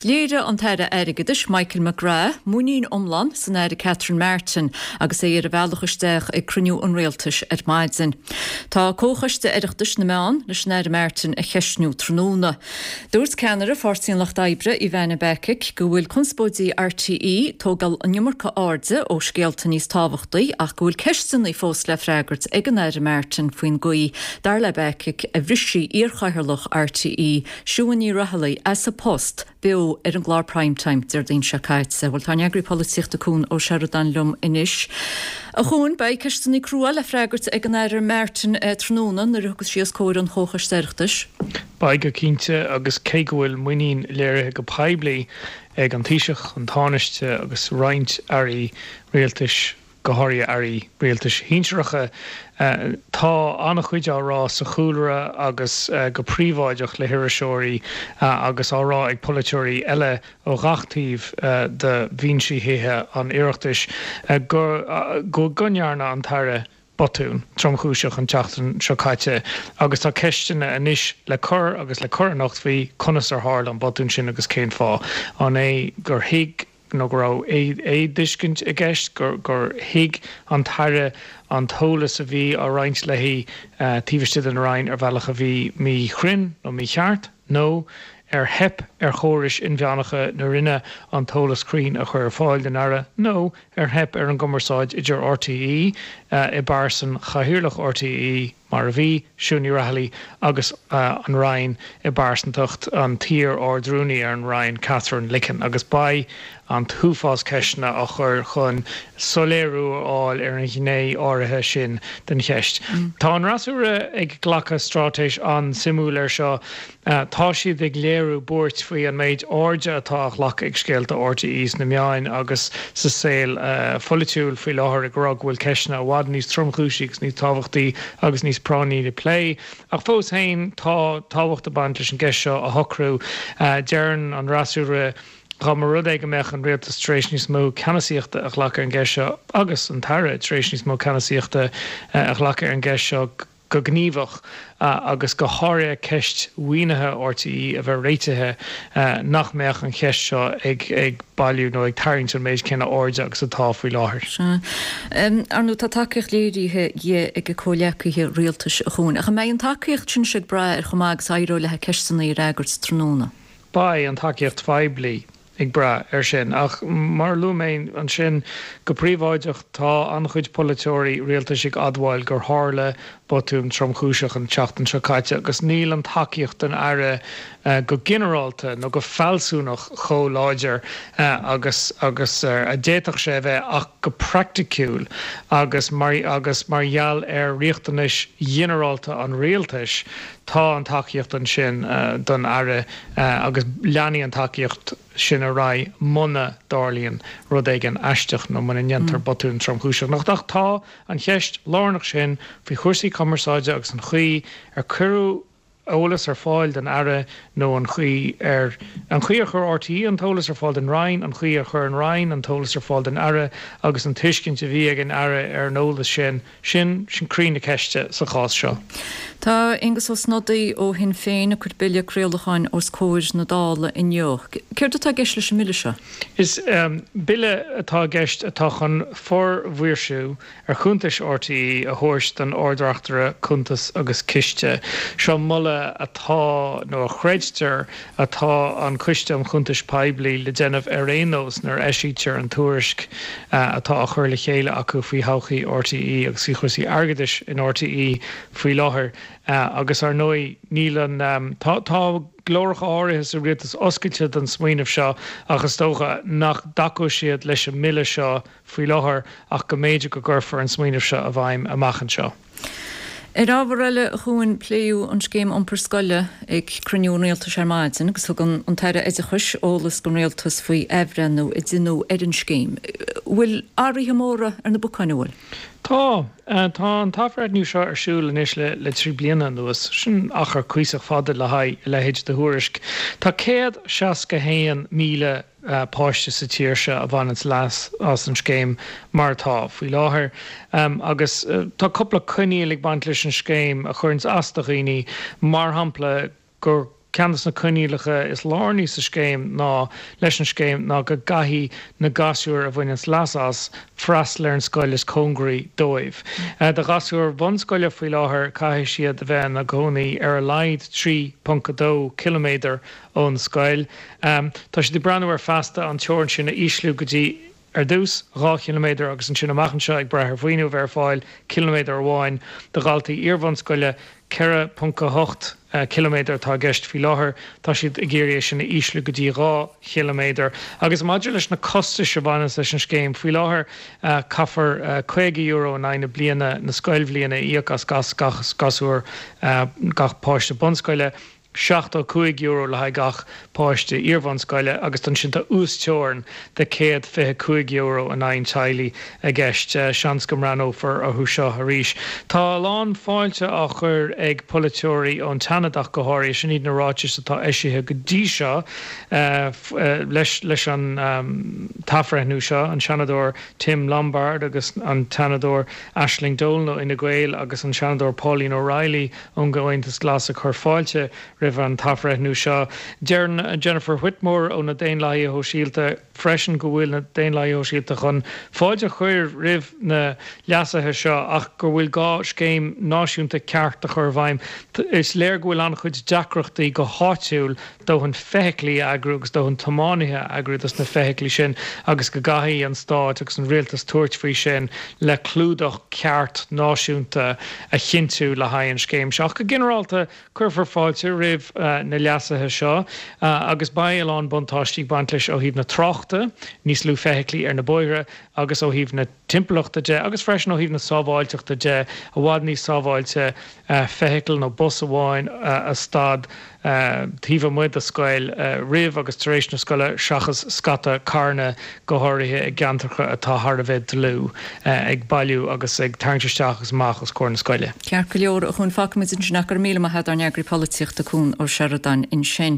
Léirigh an tAire Airgeadais Michael McGrath muinín iomlán san Aire Catherine Martin agus é ar a bhealach isteach ag cruinniú an Rialtais ar maidin. Tá Comhchoiste Oireachtais na Meán leis an Aire Martin a cheistniú tráthnóna. Dúirt ceannaire Pháirtí an Lucht Oibre, Ivana Bacik, go bhfuil conspóidí RTÉ ag tógáil an iomarca airde ó scéalta níos tábhachtaí ach go bhfuil ceisteanna fós le freagairt ag an Aire Martin faoin gcaoi, dar le Bacik, a bhris sí iarchathaoirleach RTÉ, Siún Ní Raghallaigh as a post beo ar an gclár Prime Time Déardaoin seo caite. Bhuel, tá ár n-eagraí polaitíochta Cuan Ó Seireadáin liom anois. A Chuain, beidh ceisteanna crua le freagairt ag an Aire Martin tráthnóna nuair a thiocfas sí os comhair an Chomhchoiste Oireachtais. Beidh go cinnte, agus cé go bhfuil muinín léirithe go poiblí ag an Taoiseach, an Tánaiste agus roinnt airí rialtais go háirithe airí rialtais shinsearacha. Tá an-chuid á rá sa chúlra agus go príobháideach le hiriseoirí agus á rá ag polaiteoirí eile ó ghach taobh de bhinsí Thithe an Oireachtais go go ndearna an tAire botún tromchúiseach an tseachtain seo caite agus tá ceisteanna anois le cur agus le cur anocht faoi conas ar tharla an botún sin agus cén fáth. An é gur thuig nó go raibh éamhthuiscint i gceist, gur thuig an tAire an t-eolas a bhí á roinnt léi taobh istigh den Roinn ar bhealach a bhí míchruinn nó mícheart, nó ar theip ar chórais inmheánacha na Roinne an t-eolas cruinn a chur ar fáil don Aire, nó ar theip ar an gcumarsáid idir RTÉ i bpearsan Chathaoirleach RTÉ, mar a bhí, Siún Ní Raghallaigh agus an Roinn i bpearsantacht an t-iar-Ard-Rúnaí ar an Roinn, Katherine Licken, agus beidh an t-uafás ceisteanna á chur chun soiléiriú a fháil ar an ghné áirithe sin den cheist. Tá an fhreasúra ag glacadh straitéis an-suimiúil air seo. Tá siad ag léiriú buairt faoi an méid airde atá á ghlacadh ag scéalta RTÉ sna meáin agus sa saol pholaitiúil faoi láthair, ag rá go bhfuil ceisteanna i bhfad níos tromchúisí agus níos tábhachtaí agus níos práinní le plé. Ach fós féin, tá tábhacht ag baint leis an gceist seo a shocrú. Deireann an fhreasúra dá mba rud é go mbeadh an rialtas tar éis níos mó ceannasaíochta a ghlacadh ar an gceist seo agus an tAire tar éis níos mó ceannasaíochta a ghlacadh ar an gceist seo, go gníomhach agus go háirithe ceist mhaoinithe RTÉ a bheith réitithe, nach mbeadh an cheist seo ag bailiú nó ag tarraingt an méid céanna airde agus atá faoi láthair. Sea. Ar ndóigh, tá tacaíocht léirithe di ag a comhghleacaithe rialtais, a Chuain. Ach an mbeidh an tacaíocht sin ag brath ar chomh maith agus a éireoidh léi ceisteanna a fhreagairt tráthnóna? Beidh an tacaíocht phoiblí ag brath air sin. Ach mar a luaigh mé ansin, go príobháideach tá an-chuid polaiteoirí rialtais ag admháil gur tharla botún tromchúiseach an tseachtain seo caite agus níl an tacaíocht don Aire go ginearálta nó go fealsúnach chomh láidir agus agus a d'fhéadfadh sé a bheith ach go praiticiúil agus mar agus mar gheall ar riachtanais ghinearálta an rialtais tá an tacaíocht ansin don Aire agus leanfaidh an tacaíocht sin ar aghaidh muna dtarlaíonn rud éigin aisteach nó muna ndéantar botún tromchúiseach. Ach tá an cheist lárnach sin faoi chúrsaí cumarsáide agus an chaoi ar cuireadh eolas ar fáil don Aire nó an chaoi ar an chaoi ar chuir RTÉ an t-eolas ar fáil don Roinn, an chaoi ar chuir an Roinn an t-eolas ar fáil don Aire agus an tuiscint a bhí ag an Aire ar an eolas sin. Sin, sin croí na ceiste sa chás seo. Tá Aengus Ó Snodaigh ó Shinn Féin ag cur bille craolacháin os comhair na Dála inniu. Céard atá i gceist leis an mbille seo? Is bille atá i gceist atá chun formhaoirsiú ar chuntais RTÉ a thabhairt don Ard-Reachtaire Cuntas agus Ciste. Seo moladh atá, nó a chreidtear atá an Coiste um Chuntais Poiblí le déanamh ar aon nós nuair a eisítear an tuairisc atá á chur le chéile acu faoi thodhchaí RTÉ agus faoi chúrsaí airgeadais in RTÉ faoi láthair. Agus ar ndóigh níl an, tá, tá glóracha áirithe sa rialtas oscailte don smaoineamh seo ach is dócha nach dtacóidh siad leis an mbille seo faoi láthair ach go mb'fhéidir go gcuirfear an smaoineamh seo i bhfeidhm amach anseo. Ar ábhar eile, a Chuain, pléadh an scéim iompair scoile ag cruinniú an Rialtais ar maidin agus thug an tAire Oideachais eolas don Rialtas faoi athbhreithniú a deineadh ar an scéim. Bhfuil athruithe móra ar na bacáin, an bhfuil? Tá. Tá an t-athbhreithniú seo ar siúl anois le 3 bliana anuas. Sin achar cuíosach fada le haghaidh a leithéid de thuairisc. Tá 161,000 páiste sa tír seo a bhaineanns leas as an scéim mar atá faoi láthair. Agus tá cúpla coinníoll ag baint leis an scéim a chuireanns as do dhaoine, mar shampla gur. Ceann de na coinníollacha is lárnaí sa scéim ná leis an scéim ná go gcaithfidh na gasúir a bhaineanns leas as freastal ar an scoil is cóngaraí dóibh. Do ghasúir bhunscoile faoi láthair caithfidh siad a bheith ina gcónaí ar a laghad 3.2 ciliméadar ón scoil. Tá siad ag breathnú ar feasta an teorainn sin a ísliú go dtí ar dtús, 2 chiliméadar agus ansin amach anseo, ag brath ar mhaoiniú a bheith ar fáil, ciliméadar amháin. Do dhaltaí iarbhunscoile, 4.8 ciliméadar atá i gceist faoi láthair. Tá siad ag iarraidh é sin a ísliú go dtí 2 chiliméadar. Agus maidir leis na costais a bhaineanns leis an scéim, faoi láthair caithfear €50 in aghaidh na bliana, na scoilbhliana, a íoc as gach gasúr, gach páiste bunscoile. €75 le haghaidh gach páiste iarbhunscoile agus ansin tá uasteorainn de €125 in aghaidh an teaghlaigh i gceist. Seans go mbreathnófar orthu seo arís. Tá a lán fáilte á chur ag polaiteoirí ón tSeanad ach go háirithe. Sin iad na ráitis atá eisithe go dtí seo leis leis an t-athbhreithniú seo, an Seanadóir Tim Lombard agus an tSeanadóir Aisling Dolan ó Fhine Gael agus an Seanadóir Pauline O'Reilly ón gComhaontas Glas ag cur fáilte roimh an t-athbhreithniú seo. Deireann Jennifer Whitmore ó na Daonlathaithe Shóisialta freisin go bhfuil na Daonlathaithe Shóisialta chun fáilte a chur roimh na leasuithe seo ach go bhfuil gá scéim náisiúnta ceart a chur i bhfeidhm. Is léir go bhfuil an-chuid deacrachtaí go háitiúil dóthain feithiclí a eagrú agus dóthain tiománaithe a eagrú dos na feithiclí sin agus go gcaithfidh an stát agus an rialtas tabhairt faoi sin le clúdach ceart náisiúnta a chinntiú le haghaidh an scéim seo. Ach go ginearálta cuirfear fáilte roimh na leasuithe seo agus beidh a lán buntáistí ag baint leis ó thaobh na tráchta, níos lú feithiclí ar na bóithre, agus ó thaobh na timpeallachta de agus freisin ó thaobh na sábháilteachta de, i bhfad níos sábháilte feithicil nó bus amháin a stad taobh amuigh de scoil roimh agus tar éis na scoile seachas scata carranna, go háirithe i gceantracha atá thar a bheith dlúth, ag bailiú agus ag tarraingt isteach agus amach os comhair na scoile. Ceart go leor, a Chuain, fágfaimid ansin ach go raibh míle maith agat ár n-eagraí polaitíochta Cuan Ó Seireadáin ansin.